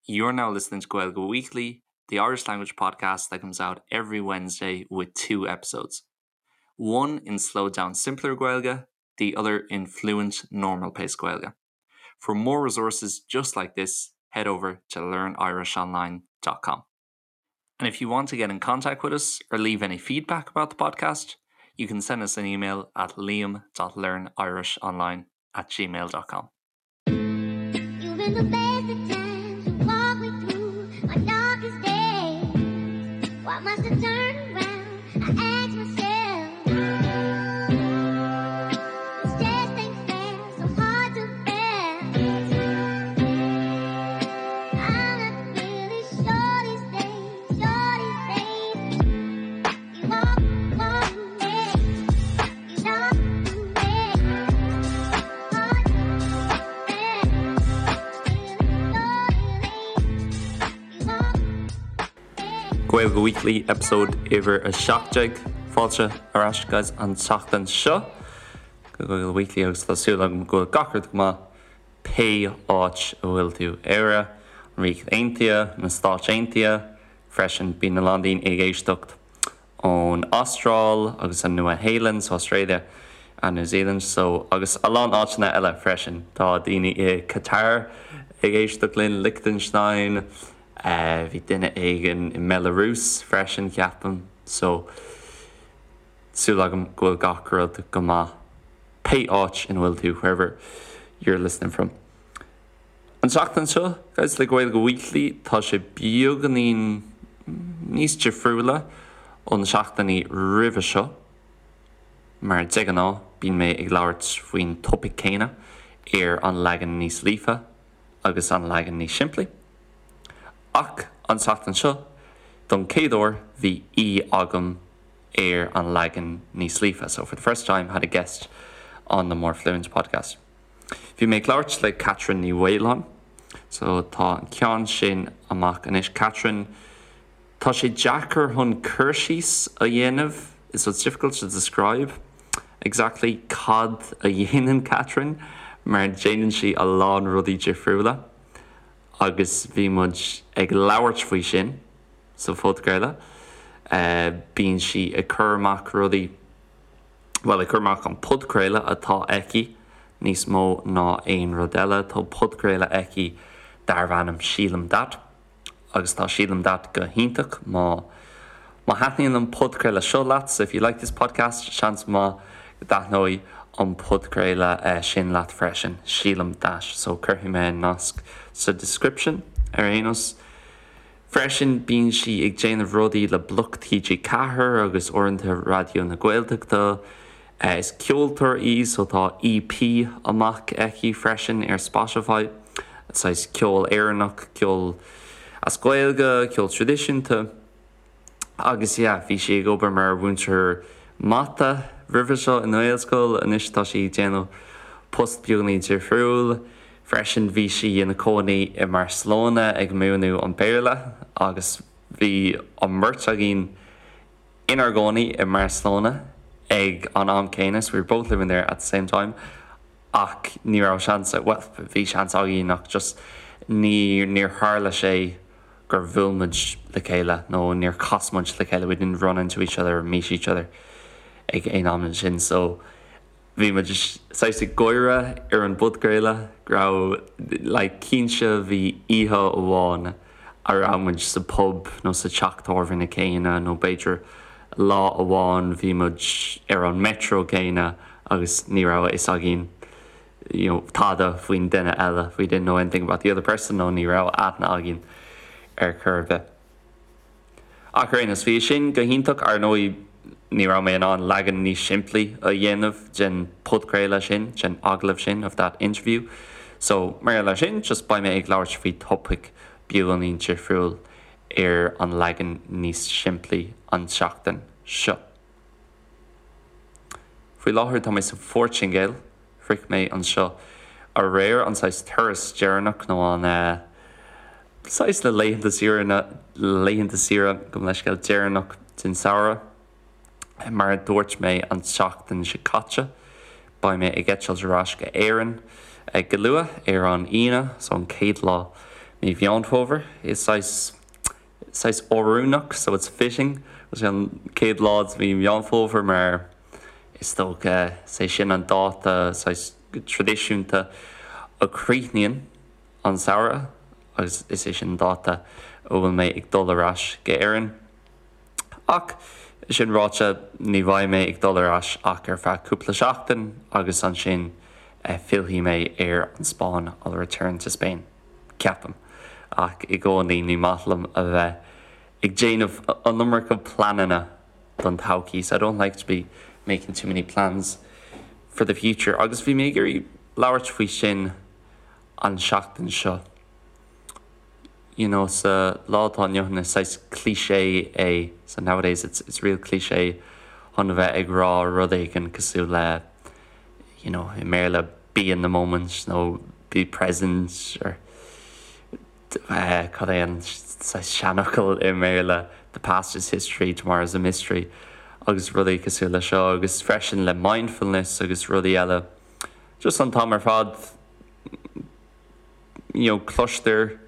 You're now listening to Gaeilge Weekly, the Irish language podcast that comes out every Wednesday with two episodes. One in slowed down simpler Gaeilge, the other in fluent normal pace Gaeilge. For more resources just like this, head over to learnirishonline.com. And if you want to get in contact with us or leave any feedback about the podcast, you can send us an email at liam.learnirishonline at gmail.com. You've been the best of times to walk me through my darkest days. Why must I turn around? I ask myself. This just ain't fair, so hard to bear. I'm not really sure these days, sure these days. You walk, walk me, you know me. Hard to bear. Gaeilge Weekly episode uimhir 17 Fáilte ar ais guys an tseachtain seo go Gaeilge Weekly agus tá súil agam go bhfuil gach rud go maith pé áit a bhfuil tú Éire, an Ríocht Aontaithe, na Stáit Aontaithe freisin bíonn a lán daoine ag éisteacht ón Astráil agus an Nua-Shéalainn so Australia and New Zealand so agus a lán áiteanna eile freisin. Tá daoine i Qatar ag éisteacht linn, Liechtenstein, bhí duine éigin i mBelarus freisin ceapaim so súil agam go bhfuil gach rud go maith pé áit ina bhfuil tú wherever you're listening from. An tseachtain seo, guys, le Gaeilge Weekly, tá sé beagáinín níos difriúla ó na seachtainí roimhe seo. Mar de ghnáth, bíonn mé ag labhairt faoin topaic céanna ar an leagan níos líofa agus an leagan níos simplí. Ach an tseachtain seo, don chéad uair, bhí aoi agam ar an leagan níos líofa. So for the first time, had a guest on the More Fluent podcast. Bhí mé ag labhairt le Catherine Ní Mhaoláin, so tá an ceann sin amach anois. Catherine, tá sé deacair chun cur síos a dhéanamh, so it's difficult to describe exactly cad a dhéanann Catherine mar déanann sí a lán rudaí difriúla agus bhí muid ag labhairt faoi sin sa phodchraoladh. Bíonn sí ag cur amach rudaí bhuel, ag cur amach an podchraoladh atá aici níos mó ná aon rud eile. Tá podchraoladh aici darbh ainm Sílim That agus tá Sílim That go hiontach má má thaitníonn an podchraoladh seo leat, so if you like this podcast, seans maith go dtaitneoidh an podchraoladh sin leat freisin, Sílim That. So cuirfidh mé an nasc sa description ar aon nós. Freisin bíonn sí ag déanamh rudaí le Bloc TG4 agus uaireanta Raidió na Gaeltachta. Is ceoltóir í so tá EP amach aici freisin ar Spotify. Saghas ceol Éireannach, ceol as Gaeilge, ceol traidisiúnta. Agus yeah, bhí sí ag obair mar mhúinteoir mata roimhe seo i nGaelscoil, anois tá sí ag déanamh post beagáinín difriúil. Freisin bhí sí ina cónaí i mBarcelona ag múineadh an Béarla agus bhí an mbeirt againn inár gcónaí i mBarcelona ag an am céanna, so we were both living there at the same time ach ní raibh seans, bhuel bhí seans againn ach just ní níor tharla sé gur bhuail muid le chéile nó níor chas muid le chéile, we didn't run into each other or meet each other ag aon am ansin so bhí muid saghas ag gáire ar an bpodchraoladh go raibh like cinnte bhí oíche amháin a raibh muid sa pub nó sa teach tábhairne céanna nó b'fhéidir lá amháin bhí muid ar an metro céanna agus ní raibh a fhios againn you know tada faoin duine eile we didn't know anything about the other person nó ní raibh aithne againn ar chor ar bith. Ach ar aon nós, bhí sin go hiontach, ar ndóigh ní raibh mé in ann leagan níos simplí a dhéanamh den podchraoladh sin, den agallamh sin, of that interview. So, mar gheall air sin, just beidh mé ag labhairt faoi topaic beagáinín difriúil ar an leagan níos simplí an tseachtain seo. Faoi láthair tá mé sa Phortaingéil. Shroich mé anseo aréir, an saghas turas deireanach nó an saghas na laethanta saoire, na laethanta saoire, gabh mo leithscéal, deireanach den samhradh. Mar a dúirt mé an tseachtain seo caite, beidh mé ag eitilt ar ais go Éirinn go luath ar an Aoine, so an chéad lá. mí Mheán Fómhair. Is saghas saghas oiriúnach, so it's fitting, go bhfuil sé an chéad lá de mhí Mheán Fómhair mar is dócha is é sin an dáta saghas traidisiúnta a chríochnaíonn an samhradh agus is é sin an dáta a bhfuil mé ag dul ar ais go Éirinn. Ach sin ráite, ní bheidh mé ag dul ar ais ach ar feadh cúpla seachtain agus ansin fillfidh mé ar an Spáinn, I'll return to Spain, ceapaim. Ach i gcónaí ní maith liom a bheith ag déanamh an iomarca pleananna don todhchaí, so I don't like to be making too many plans for the future. Agus bhí mé ag iarraidh labhairt faoi sin an seachtain seo. You know, sa lá atá inniu ann is saghas cliché é, so nowadays it's, it's real cliché chun a bheith ag rá rud éigin cosúil le, you know, i mBéarla be in the moment nó be present or eh, cad é an saghas seanfhocal i mBéarla the past is history, tomorrow is a mystery agus rudaí cosúil le seo agus freisin le mindfulness agus rudaí eile. Just an t-am ar fad you know, cloistear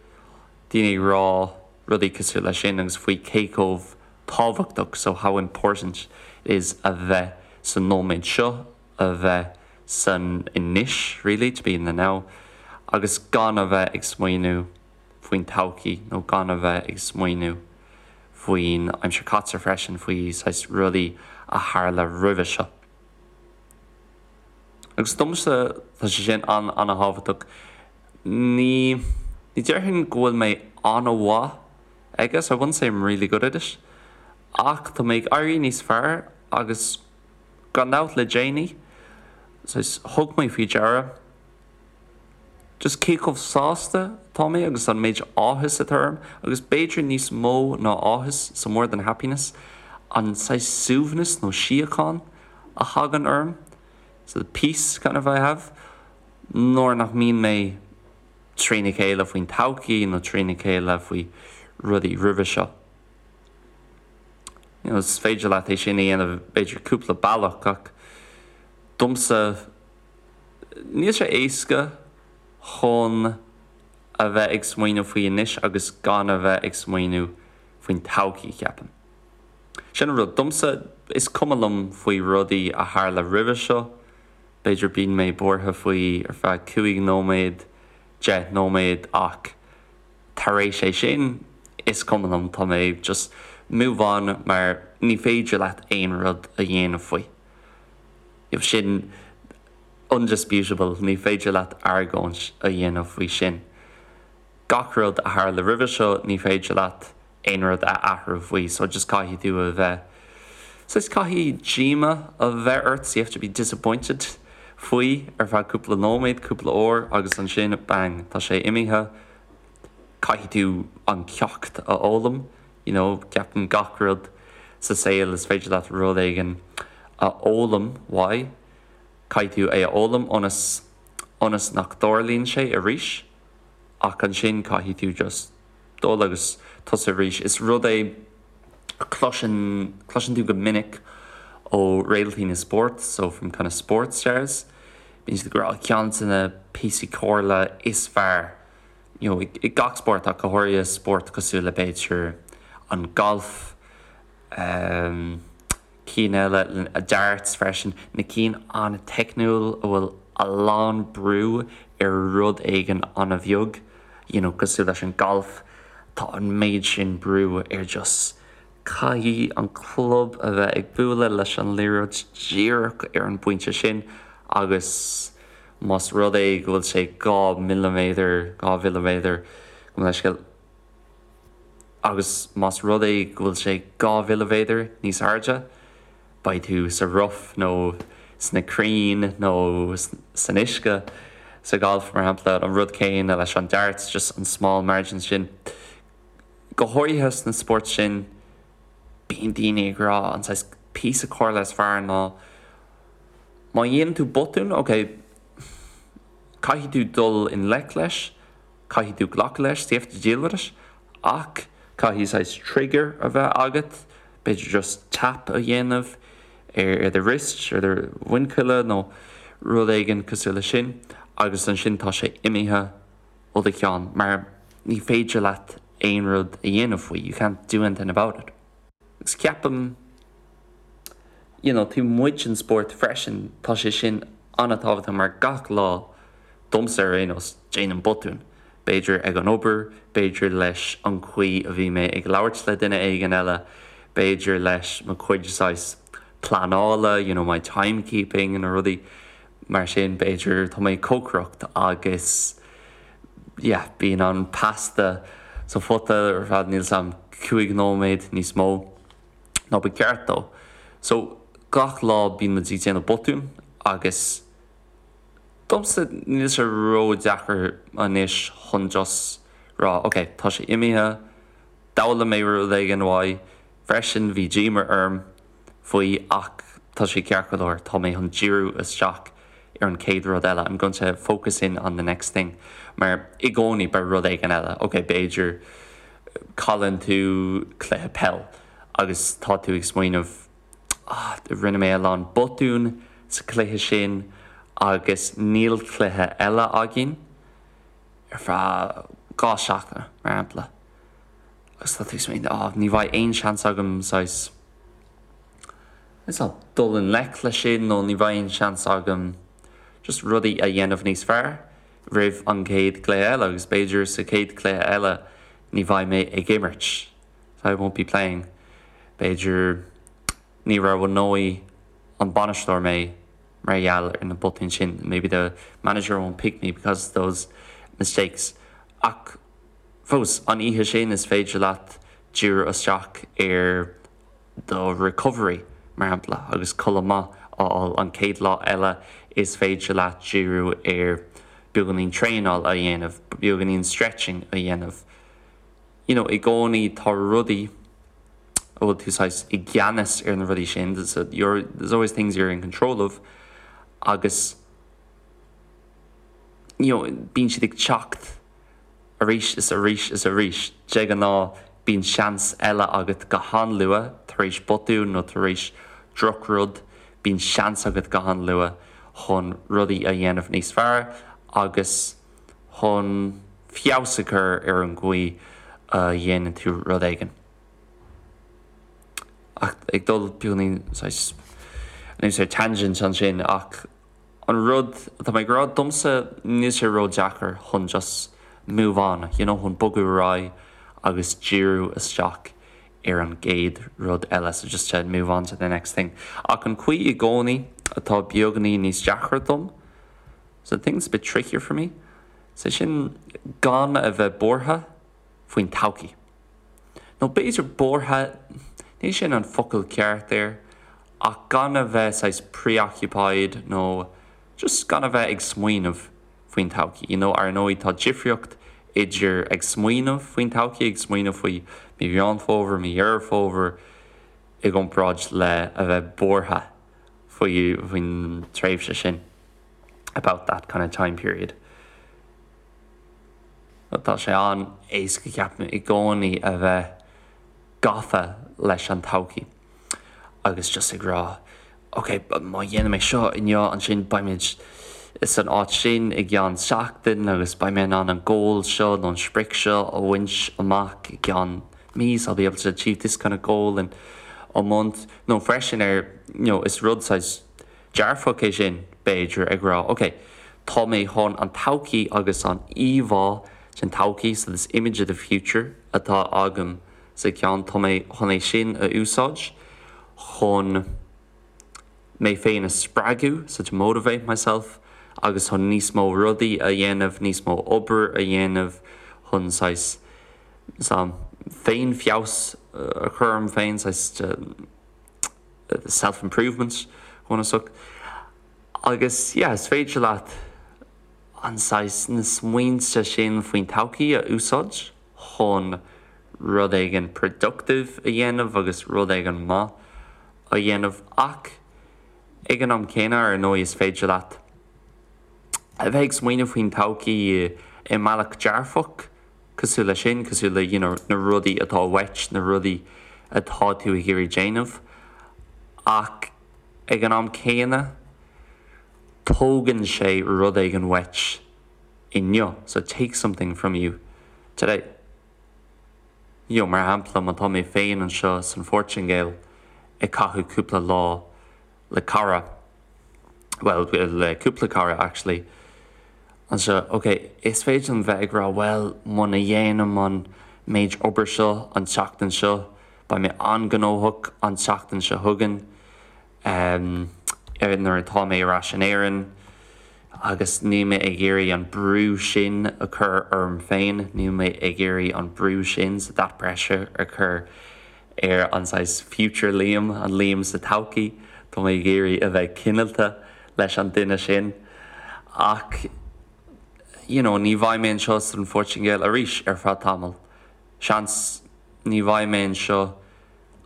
daoine ag rá rudaí cosúil leis sin agus faoi cé chomh tábhachtach, so how important it is a bheith sa nóiméad seo, a bheith san anois really, to be in the now, agus gan a bheith ag smaoineamh faoin todhchaí nó gan a bheith ag smaoineamh faoin aimsir caite freisin, faoi saghas rudaí a tharla roimhe seo. Agus domsa, tá sé sin an-an-thábhachtach. Ní, ní déarfainn go bhfuil mé an-mhaith aige, so I wouldn't say I'm really good at it, ach tá mé ag éirí níos fearr agus gan dabht le déanaí, saghas, thug mé faoi deara just cé chomh sásta atá mé agus an méid áthas atá orm, agus b'fhéidir níos mó ná áthas, so more than happiness, an saghas suaimhneas nó síocháin a thagann orm, so the peace kind of I have, nuair nach mbíonn mé trína chéile faoin todhchaí nó trína chéile faoi rudaí roimhe seo. You know, is féidir leat é sin a dhéanamh b'fhéidir cúpla bealach ach domsa, Níl sé éasca chun a bheith ag smaoineamh faoi anois agus gan a bheith ag smaoineamh faoin todhchaí, ceapaim. Sin an rud. Domsa, is cuma liom faoi rudaí a tharla roimhe seo. B'fhéidir bíonn mé buartha faoi ar feadh 5 nóiméad, 10 nóiméad ach tar éis é sin, is cuma liom, tá mé just move on mar ní féidir leat aon rud a dhéanamh faoi. Sin undisputable, ní féidir leat argóint a dhéanamh faoi sin. Gach rud a tharla roimhe seo, ní féidir leat aon rud a athrú faoi, so just caithfidh tú a bheith, saghas caithfidh díoma a bheith ort, so you have to be disappointed faoi ar feadh cúpla nóiméad, cúpla uair agus ansin bang, tá sé imithe, caithfidh tú an ceacht a fhoghlaim. You know, ceapaim gach rud sa saol is féidir leat rud éigin a fhoghlaim uaidh, caithfidh tú é a fhoghlaim ionas, ionas nach dtarlaíonn sé arís ach ansin caithfidh tú just dul agus tosú arís. Is rud é a chloiseann, cloiseann tú go minic ó réaltaí na spórt, so from kind of sports stars, bíonn siad ag rá ceann de na píosaí comhairle is fearr you know, i gach spórt ach go háirithe spórt cosúil le b'fhéidir an galf, ehm, cinn eile, darts freisin, na cinn an-teicniúil a bhfuil a lán brú ar rud éigin an-bheag, you know, cosúil leis an galf, tá an méid sin brú ar just caithfidh an club a bheith ag bualadh leis an liathróid díreach ar an bpointe sin agus más rud é go bhfuil sé 2 milliméadar, 2 mhilliméadar, gabh mo leithscéal, agus más rud é go bhfuil sé 2 mhilliméadar níos airde, beidh tú sa rough nó sna crainn nó san uisce sa ghalf, mar shampla, an rud céanna leis an darts, just an small margin sin. Go háirithe sna spóirt sin, bíonn daoine ag rá an saghas píosa comhairle is fearr ná, Má dhéanann tú botún, ok, caithfidh tú dul i ngleic leis, caithfidh tú glacadh leis, so you have to deal with it, ach caithfidh saghas trigger a bheith agat, b'fhéidir just tap a dhéanamh ar do wrist, ar do mhuinchille nó rud éigin cosúil leis sin agus ansin tá sé imithe ó do cheann mar. Ní féidir leat aon rud a dhéanamh faoi, you can't do anything about it. Agus ceapaim, you know, taobh amuigh den spórt freisin, tá sé sin an-tábhachtach mar gach lá, domsa ar aon nós, déanaim botún. B'fhéidir ag an obair, b'fhéidir leis an chaoi a bhí mé ag labhairt le duine éigin eile, b'fhéidir leis mo chuid saghas pleanála, you know, my timekeeping, na rudaí mar sin, b'fhéidir tá mé ag cócaireacht agus yeah, bíonn an pasta sa phota ar feadh, níl 's a'm, 5 nóiméad níos mó ná ba cheart dó. So, gach lá bíonn muid ag déanamh botún agus domsa níl sé ró-deacair anois chun just rá ok, tá sé imithe, d'fhoghlaim mé rud éigin uaidh freisin, bhí díoma orm faoi ach tá sé ceart go leor, tá mé chun díriú isteach ar an chéad rud eile, I'm going to focus in on the next thing mar i gcónaí beidh rud éigin eile, ok b'fhéidir cailleann tú cluiche peil agus tá tú ag smaoineamh ah rinne mé a lán botún sa chluiche sin agus níl cluiche eile againn ar feadh 2 seachtaine mar shampla agus tá tú ag smaoineamh ah ní bheidh aon seans agam saghas is dul i ngleic leis sin nó ní bheidh aon seans agam just rudaí a dhéanamh níos fearr roimh an gcéad chluiche eile agus b'fhéidir sa chéad chluiche eile ní bheidh mé ag imirt so I won't be playing b'fhéidir ní roghnóidh an bainisteoir mé mar gheall ar na botúin sin maybe the manager won't pick me because of those mistakes ach fós an oíche sin is féidir leat díriú isteach ar do recovery, mar shampla, agus codladh maith a fháil an chéad lá eile is féidir leat díriú ar beagáinín traenáil a dhéanamh, beagáinín stretching a dhéanamh. You know, i gcónaí tá rudaí a bhfuil tú saghas i gceannas ar na rudaí sin, you're, there's always things you're in control of agus you know, bíonn siad ag teacht arís is arís is arís. De ghnáth, bíonn seans eile agat go han-luath tar éis botún nó tar éis drochrud, bíonn seans agat go han-luath chun rudaí a dhéanamh níos fearr agus chun feabhas a chur ar an gcaoi a dhéanann tú rud éigin. Ach ag dul beagáinín saghas anuas ar tangent ansin ach An rud atá mé ag rá, domsa níl sé ró-deacair chun just move on, you know, chun bogadh ar aghaidh agus díriú isteach ar an gcéad rud eile, so just to move on to the next thing. Ach an chaoi i gcónaí atá beagáinín níos deacra dom, so the thing's a bit trickier for me, sé sin gan a bheith buartha faoin todhchaí. Nó b'fhéidir buartha, ní sin an focal ceart air, ach gan a bheith saghas preoccupied nó just gan a bheith ag smaoineamh faoin todhchaí. You know, ar ndóigh tá difríocht idir ag smaoineamh faoin todhchaí, ag smaoineamh faoi mí Mheán Fómhair, mí Dheireadh Fómhair i gcomparáid le a bheith buartha faoi faoin tréimhse sin, about that kind of time period. Tá sé an-éasca ceapaim i gcónaí a bheith gafa leis an todhchaí agus just ag rá ok má dhéanaim é seo inniu ansin beimid san áit sin i gceann seachtain agus beidh mé in ann an goal seo nó an sprioc seo a bhaint amach i gceann mí so I'll be able to achieve this kind of goal in a month nó freisin ar you know is rud saghas dearfach é sin, b'fhéidir, ag rá, ok, tá mé chun an todhchaí agus an íomhá den todhchaí, so this image of the future atá agam sa cheann, tá mé chun é sin a úsáid chun mé féin a spreagadh, so to motivate myself, agus chun níos mó rudaí a dhéanamh, níos mó obair a dhéanamh, chun saghas, féin-fheabhas a chur orm féin, saghas. self-improvement bunúsach. Agus yeah, is féidir leat an saghas, na smaointe sin faoin todhchaí a úsáid chun rud éigin productive a dhéanamh agus rud éigin maith a dhéanamh ach ag an am céanna ar ndóigh is féidir leat a bheith ag smaoineamh faoin todhchaí i mbealach dearfach cosúil leis sin, cosúil le you know na rudaí atá uait, na rudaí atá tú ag iarraidh déanamh ach ag an am céanna tógann sé rud éigin uait inniu, so it takes something from you. Today. You know, mar shampla, má tá mé féin anseo san Phortaingéil ag caitheamh cúpla lá le cara, bhuel, le cúpla cara actually, anseo, ok, is féidir liom bheith ag rá, bhuel, muna dhéanaim an méid obair seo an tseachtain seo, beidh mé an-ghnóthach an tseachtain seo chugainn, um, nuair atá mé ar ais in Éirinn. Agus níl mé ag iarraidh an brú sin a chur orm féin, níl mé ag iarraidh an brú sin, so that pressure a chur ar an saghas future Liam, an Liam sa todhchaí, tá mé ag iarraidh a bheith cineálta leis an duine sin. Ach you know, ní bheidh mé anseo san Phortaingéil arís ar feadh tamaill. Seans ní bheidh mé anseo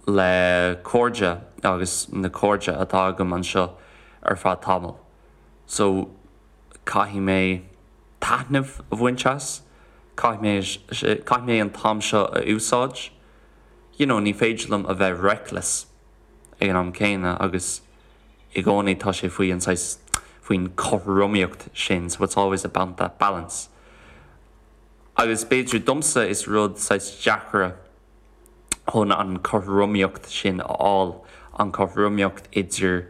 le cairde agus na cairde atá agam anseo ar feadh tamaill. So caithfidh mé taitneamh a bhaint as, caithfidh mé, caithfidh mé an t-am seo a úsáid. You know, ní féidir liom a bheith reckless ag an am céanna agus i gcónaí tá sé faoi an saghas, faoin chothromaíocht sin, so it's always about that balance. Agus b'fhéidir domsa is rud saghas deacra chun an chothromaíocht sin a fháil, an chothromaíocht idir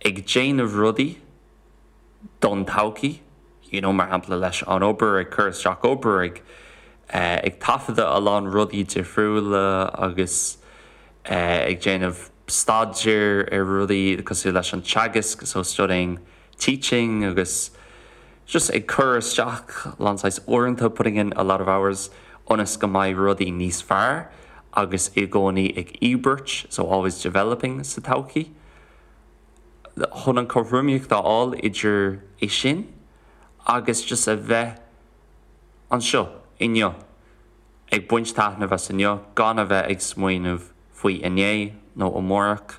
ag déanamh rudaí don todhchaí, you know, mar shampla leis an obair, ag cur isteach obair, ag ag taifeadadh a lán rudaí difriúla agus ag déanamh staidéir ar rudaí cosúil leis an teagasc, so studying teaching agus just ag cur isteach a lán saghas uaireanta, putting in a lot of hours, ionas go mbeidh rudaí níos fearr agus i gcónaí ag íobairt, so always developing sa todhchaí. Chun an chothromaíocht a fháil idir é sin agus just a bheith anseo inniu, ag baint taitneamh as inniu, gan a bheith ag smaoineamh faoi inné nó amárach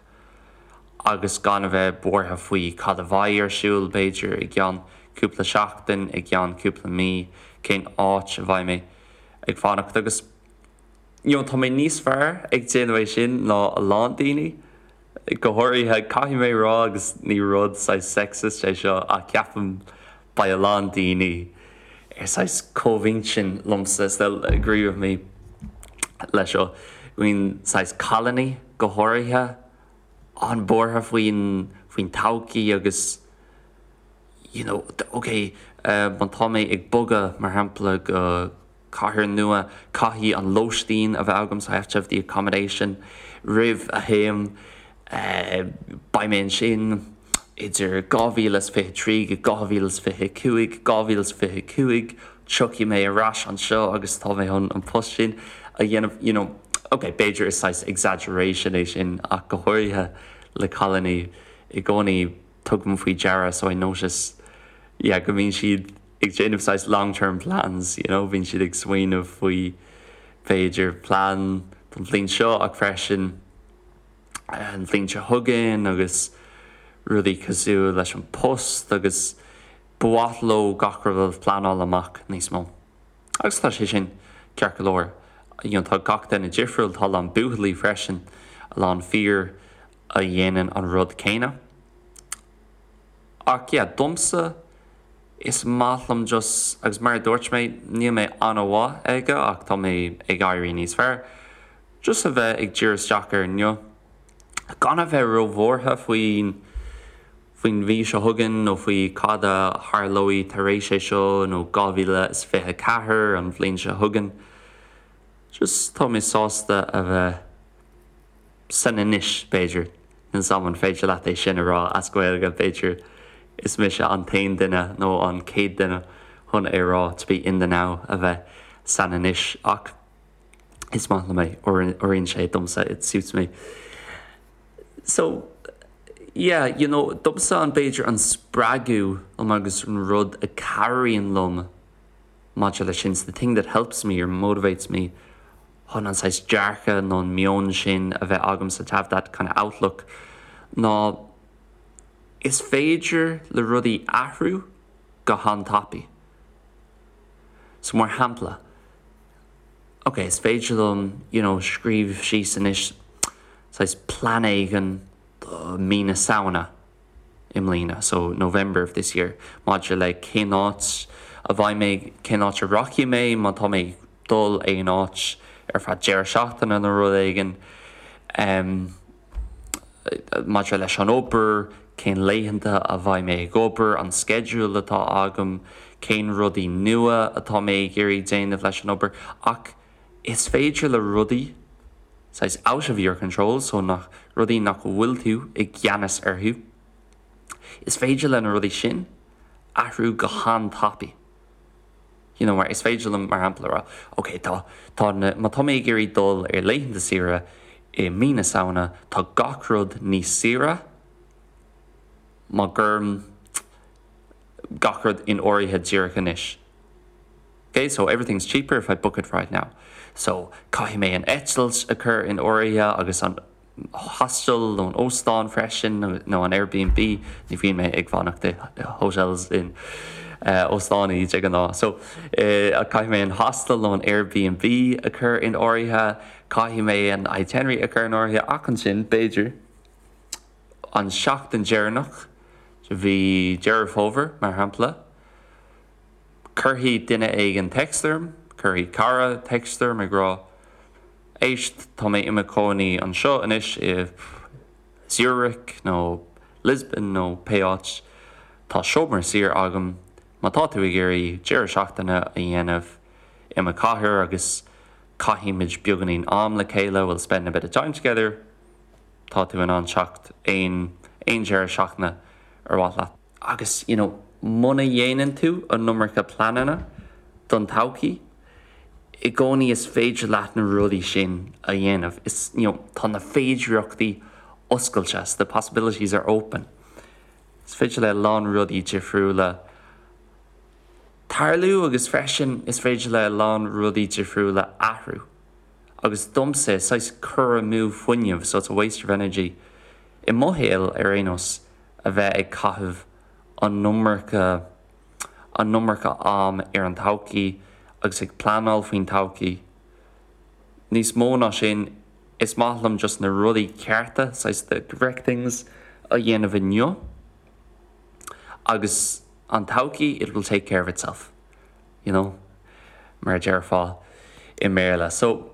agus gan a bheith buartha faoi cad a bheidh ar siúl, b'fhéidir, i gceann cúpla seachtain, i gceann cúpla mí, cén áit a bheidh mé ag fanacht agus you know tá mé níos fearr ag déanamh é sin ná a lán daoine. Go háirithe, caithfidh mé a rá, agus ní rud saghas sexist é seo, ach ceapaim beidh a lán daoine ar saghas comhintinn liomsa, they'll agree with me leis seo, go mbíonn saghas cailíní go háirithe an-bhuartha faoin faoin todhchaí agus you know ok má tá mé ag bogadh mar shampla go cathair nua, caithfidh an lóistín a bheith agam, so I have to have the accommodation roimh a théim. Beidh mé ansin idir 2023 go 2025, 2025 tiocfaidh mé ar ais anseo agus tá mé chun an post sin a dhéanamh, you know. Ok, b'fhéidir is saghas exaggeration é sin ach go háirithe le cailíní i gcónaí tugaim faoi deara so I notice yeah go mbíonn siad ag déanamh saghas long term plans, you know, bíonn siad ag smaoineamh faoi b'fhéidir plean don bhliain seo ach freisin an bhliain seo chugainn agus rudaí cosúil leis an post agus ba mhaith leo gach rud a phleanáil amach níos mó. Agus tá sé sin ceart go leor. You know, tá gach duine difriúil, tá a lán buachaillí freisin, a lán fir a dhéanann an rud céanna. Ach yeah, domsa, is maith liom just, agus mar a dúirt mé, níl mé an-mhaith aige ach tá mé ag éirí níos fearr, just a bheith ag díriú isteach ar inniu, gan a bheith róbhuartha faoin, faoin mhí seo chugainn nó faoi cad a tharlóidh tar éis é seo nó 2024, an bhliain seo chugainn. Just tá mé sásta a bheith. san anois, b'fhéidir. Níl 's a'm an féidir leat é sin a rá as Gaeilge, b'fhéidir is mise an t-aon duine nó an chéad duine chun é a rá, to be in the now, a bheith san anois, ach is maith liom é, oireann sé domsa, it suits me. So, yeah, you know, domsa an b'fhéidir an spreagadh liom agus an rud a cabhraíonn liom maidir leis sin, the thing that helps me or motivates me, chun an saghas dearcadh nó an meon sin a bheith agamsa, to have that kind of outlook, ná is féidir le rudaí athrú go han-tapaidh. So mar shampla, ok, is féidir liom, you know, scríobh síos anois saghas plean éigin do mí na Samhna, i mbliana, so November of this year, maidir le cén áit a bheidh mé, cén áit a rachaidh mé, má tá mé. dul aon áit ar feadh deireadh seachtaine nó rud éigin. Maidir leis an obair, cén laethanta a bheidh mé ag obair, an sceideal atá agam, cén rudaí nua atá mé ag iarraidh déanamh leis an obair. Ach is féidir le rudaí saghas out of your control, so nach rudaí nach bhfuil tú i gceannas orthu, is féidir le na rudaí sin athrú go han-tapaidh. You know, mar is féidir liom, mar shampla, a rá, ok, tá, tá na, má tá mé ag iarraidh dul ar laethanta saoire i mí na Samhna, tá gach rud níos saoire má chuirim gach rud in áirithe díreach anois. Ok, so everything's cheaper if I book it right now. So, caithfidh mé an eitilt a chur in áirithe agus an hostel nó an óstán freisin nó an Airbnb, ní bhíonn mé ag fanacht i hotels in óstáin de ghnáth. So, caithfidh mé an hostel nó an Airbnb a chur in áirithe, caithfidh mé an itinerary a chur in áirithe ach ansin, b'fhéidir, an seachtain deireanach de mhí Deireadh Fómhair, mar shampla, cuirfidh duine éigin text orm, cuirfidh cara text orm ag rá, Éist, tá mé i mo chónaí anseo anois i Zurich nó Lisbon nó pé áit. Tá seomra saor agam. Má tá tú ag iarraidh deireadh seachtaine a dhéanamh i mo chathair agus caithfimid beagáinín am le chéile, we'll spend a bit of time together, tá tú in ann teacht aon aon deireadh seachtaine ar mhaith leat. Agus, you know, muna dhéanann tú an iomarca pleananna don todhchaí, i gcónaí is féidir leat na rudaí sin a dhéanamh. Is, you know, tá na féidireachtaí oscailte, so the possibilities are open. Is féidir le a lán rudaí difriúla tarlú agus freisin is féidir le a lán rudaí difriúla athrú. Agus domsa, is saghas cur amú fuinnimh, so it's a waste of energy, i mo shaol ar aon nós, a bheith ag caitheamh an iomarca an iomarca am ar an todhchaí agus ag pleanáil faoin todhchaí. Níos mó ná sin, is maith liom just na rudaí cearta, saghas the correct things, a dhéanamh inniu agus an todhchaí, it will take care of itself, you know, mar a déarfá i mBéarla. So.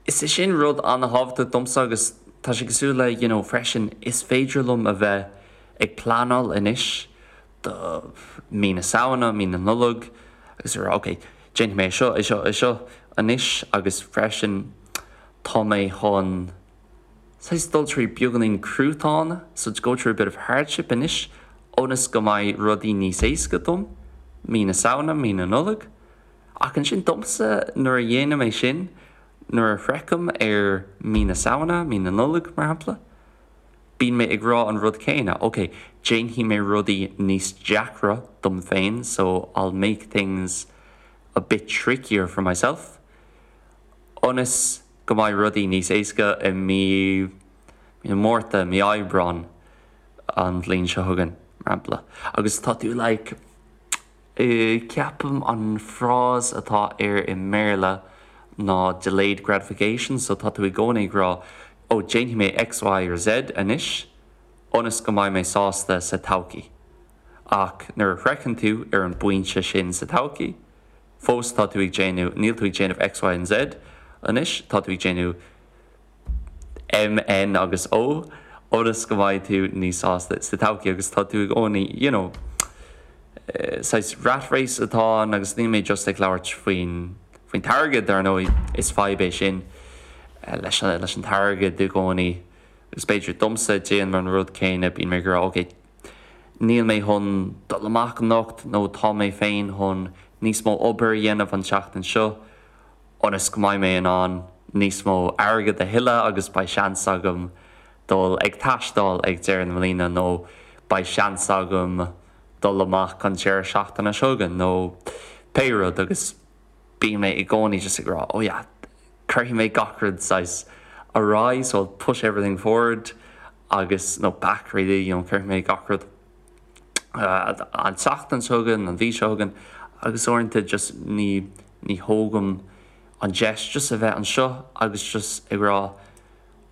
Is é sin rud an-thábhachtach domsa agus tá sé cosúil le, you know, freisin, is féidir liom a bheith ag pleanáil anois do mí na Samhna, mí na Nollag agus a rá ok, déanfaidh mé é seo, é seo, é seo anois agus freisin tá mé chun saghas dul trí beagáinín cruatáin, so to go through a bit of hardship anois ionas go mbeidh rudaí níos éasca dom mí na Samhna, mí na Nollag. Ach ansin domsa, nuair a dhéanaim é sin, nuair a shroichim ar mí na Samhna, mí na Nollag, mar shampla, bíonn mé ag rá an rud céanna, ok, déanfaidh mé rudaí níos deacra dom féin, so I'll make things a bit trickier for myself, ionas go mbeidh rudaí níos éasca i mí, mí na Márta, mí Aibreán an bhliain seo chugainn, mar shampla. Agus tá tú like. Ceapaim an frás atá air i mBéarla ná delayed gratification, so tá tú i gcónaí ag rá oh déanfaidh mé X, Y or Z anois ionas go mbeidh mé sásta sa todhchaí. Ach nuair a shroicheann tú ar an bpointe sin sa todhchaí, fós tá tú ag déanamh, níl tú ag déanamh X, Y and Z anois, tá tú ag déanamh M, N agus O ionas go mbeidh tú níos sásta sa todhchaí agus tá tú i gcónaí, you know, saghas rat race atá ann agus níl mé just ag labhairt faoin, faoin t-airgead, dar ndóigh, is fadhb é sin leis an, leis an t-airgead i gcónaí agus b'fhéidir domsa, déanaim an rud céanna, bíonn mé ag rá ok, níl mé chun dul amach anocht nó tá mé féin chun níos mó obair a dhéanamh an tseachtain seo. ionas go mbeidh mé in ann níos mó airgead a thuilleadh agus beidh seans agam dul ag taisteal ag deireadh na bliana nó beidh seans agam dul amach an deireadh seachtaine seo chugainn nó pé rud agus bíonn mé i gcónaí just ag rá oh yeah cuirfidh mé gach rud saghas ar aghaidh so I'll push everything forward agus nó back really you know cuirfidh mé gach rud an tseachtain seo chugainn, an mhí seo chugainn agus uaireanta just ní ní thógaim an deis just a bheith anseo agus just ag rá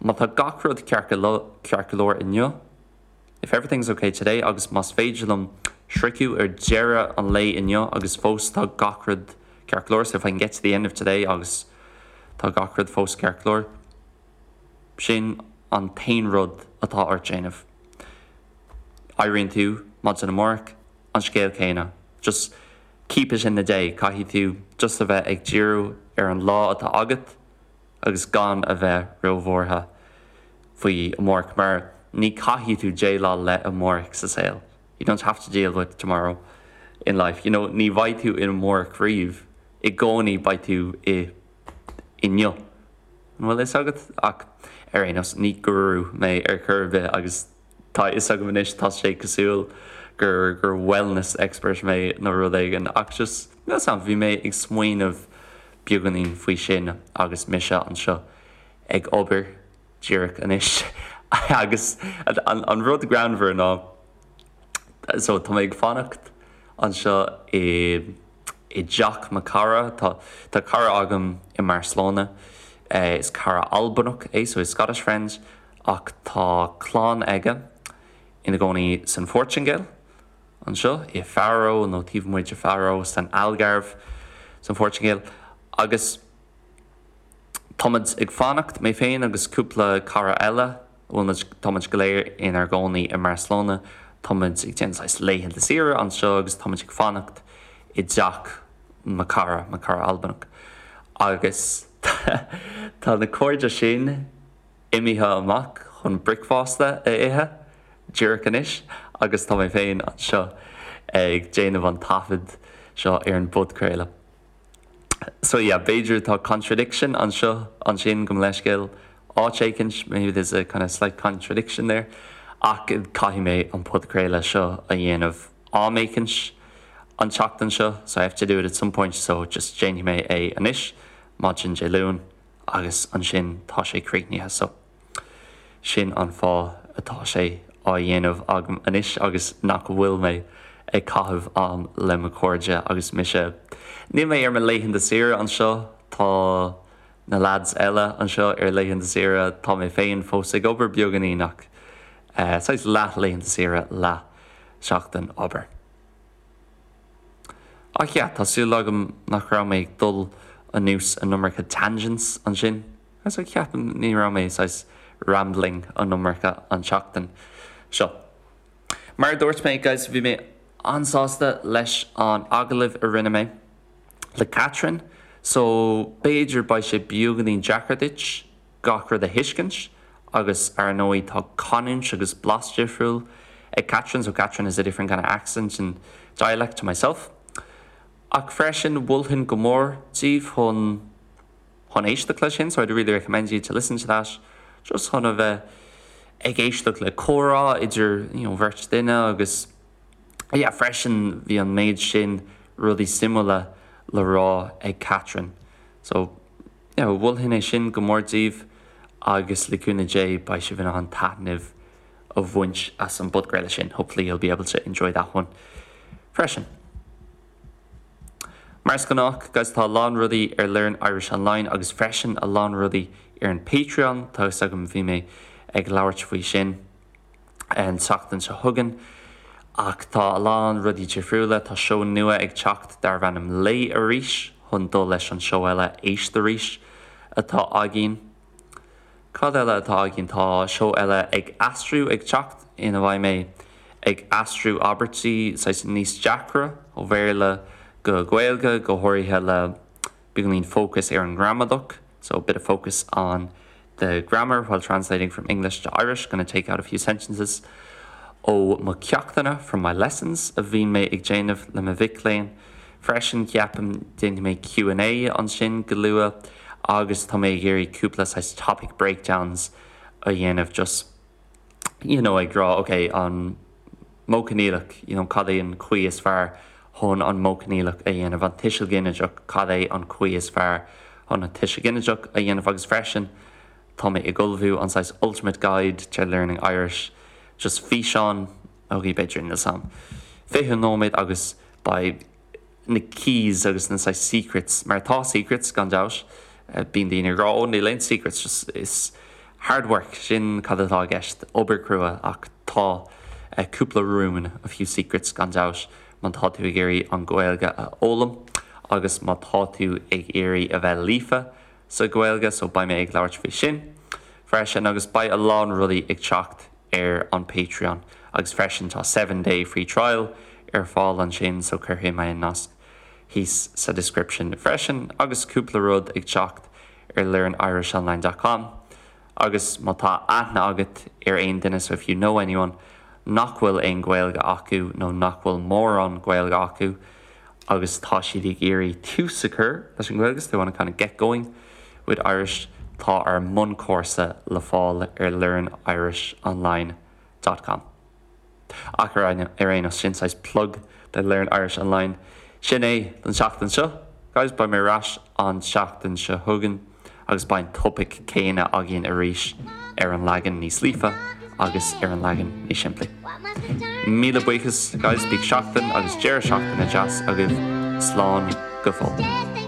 má tá gach rud ceart go ceart go leor inniu, if everything's okay today agus más féidir liom sroicheadh ar deireadh an lae inniu agus fós tá gach rud. ceart go leor, so if I can get to the end of today agus tá gach rud fós ceart go leor, sin an t-aon rud atá ort déanamh. Éiríonn tú maidin amárach, an scéal céanna. Just keep it in the day, caithfidh tú just a bheith ag díriú ar an lá atá agat agus gan a bheith róbhuartha faoi amárach mar ní caithfidh tú déileáil le amárach sa saol. You don't have to deal with tomorrow in life. You know, ní bheidh tú in amárach riamh, i gcónaí beidh tú i inniu. An bhfuil fhios agat? Ach ar aon nós, ní guru mé ar chor ar bith agus tá a fhios agam anois tá sé cosúil gur gur wellness expert mé nó rud éigin ach just níl 'fhios a'm, bhí mé ag smaoineamh beagáinín faoi sin agus mise anseo ag obair díreach anois agus an rud greannmhar ná so tá mé ag fanacht anseo i i dteach mo cara tá tá cara agam i mBarcelona is cara Albanach é so he's Scottish friend ach tá clann aige ina gcónaí san Phortaingéil anseo i Faro nó taobh amuigh de Faro san Algarve san Phortaingéil agus Táimid ag fanacht, mé féin agus cúpla cara eile, bhfuil muid, táimid go léir inár gcónaí i mBarcelona, táimid ag déanamh saghas laethanta saoire anseo agus táimid ag fanacht i dteach mo cara, mo cara Albanach. Agus tá na cairde sin imithe amach chun bricfeasta a ithe díreach anois agus tá mé féin anseo ag déanamh an taifead seo ar an bpodchraoladh. So yeah, b'fhéidir tá contradiction anseo ansin gabh mo leithscéal áit éicint, maybe there's a kind of slight contradiction there, ach caithfidh mé an podchraoladh seo a dhéanamh am éicint an tseachtain seo, so I have to do it at some point, so just déanfaidh mé é anois, maidin Dé Luain, agus ansin tá sé críochnaithe, so. Sin an fáth atá sé á dhéanamh agam anois agus nach bhfuil mé ag caitheamh am le mo chairde agus mise. Níl mé ar mo laethanta saoire anseo, tá na lads eile anseo ar laethanta saoire, tá mé féin fós ag obair beagáinín ach saghas leath laethanta saoire, leath seachtain obair. Ach yeah, tá súil agam nach raibh mé ag dul anuas an iomarca tangents ansin. So ceapaim ní raibh mé saghas rambling an iomarca an tseachtain seo. Mar a dúirt mé guys bhí mé an-sásta leis an agallamh a rinne mé le Catherine so b'fhéidir beidh sé beagáinín deacair duit gach rud a thuiscint agus ar ndóigh tá canúint agus blas difriúil ag Catherine so Catherine has a different kind of accent and dialect to myself. Ach freisin mholfainn go mór daoibh chun chun éisteacht leis sin, so I'd really recommend you to listen to that just chun a bheith ag éisteacht le comhrá idir you know bheirt duine agus yeah freisin bhí an méid sin rudaí suimiúla le rá ag Catherine. So yeah mholfainn é sin go mór daoibh agus le cúnamh Dé beidh sibh in ann taitneamh a bhaint as an bpodchraoladh sin. Hopefully you'll be able to enjoy that one freisin. Mar is gnách, guys, tá a lán rudaí ar Learn Irish Online agus freisin a lán rudaí ar an Patreon, tá fhios agam bhí mé ag labhairt faoi sin an tseachtain seo chugainn, ach tá a lán rudaí difriúla, tá seó nua ag teacht darbh ainm Léigh Arís chun dul leis an seó eile Éist Arís atá againn. Cad eile atá againn? Tá seó eile ag aistriú ag teacht ina mbeidh mé ag aistriú abairtí saghas níos deacra ó Bhéarla go Gaeilge, go háirithe le beagáinín fócas ar an ngramadach, so a bit of focus on the grammar while translating from English to Irish, gonna take out a few sentences ó mo cheachtanna, from my lessons, a bhíonn mé ag déanamh le mo mhic léinn. Freisin, ceapaim, déanfaidh mé Q and A ansin go luath agus tá mé ag iarraidh cúpla saghas topic breakdowns a dhéanamh just you know ag rá ok an modh coinníollach you know cad é an chaoi is fearr chun an modh coinníollach a dhéanamh, an tuiseal ginideach cad é an chaoi is fearr chun an tuiseal ginideach a dhéanamh agus freisin tá mé ag ullmhú an saghas ultimate guide to learning Irish just físeán ok b'fhéidir níl 's a'm 20 nóiméad agus beidh na keys agus na saghas secrets mar tá secrets gan dabht bíonn daoine ag rá oh níl aon secrets just is hard work sin cad atá i gceist obair crua ach tá cúpla rún a few secrets gan dabht má tá tú ag iarraidh an Ghaeilge a fhoghlaim. agus má tá tú ag iarraidh a bheith líofa sa Ghaeilge so beidh mé ag labhairt faoi sin freisin agus beidh a lán rudaí ag teacht ar an Patreon agus freisin tá 7 day free trial ar fáil ansin so cuirfidh mé an nasc thíos sa description freisin agus cúpla rud ag teacht ar learnirishonline dot com agus má tá aithne agat ar aon duine so if you know anyone nach bhfuil aon Ghaeilge acu nó nach bhfuil mórán Gaeilge acu agus tá siad ag iarraidh tús a chur leis an Ghaeilge so they want to kind of get going with Irish tá ár mbunchúrsa le fáil ar learnirishonline dot com. Ach ar aon nós, sin saghas plug do Learn Irish Online. Sin é don tseachtain seo, guys. Beidh mé ar ais an tseachtain seo chugainn agus beidh an topaic céanna againn arís ar an leagan níos líofa agus ar an leagan níos simplí. Míle buíochas, guys. Bíodh seachtain agus deireadh seachtaine deas agaibh. Slán go fóill.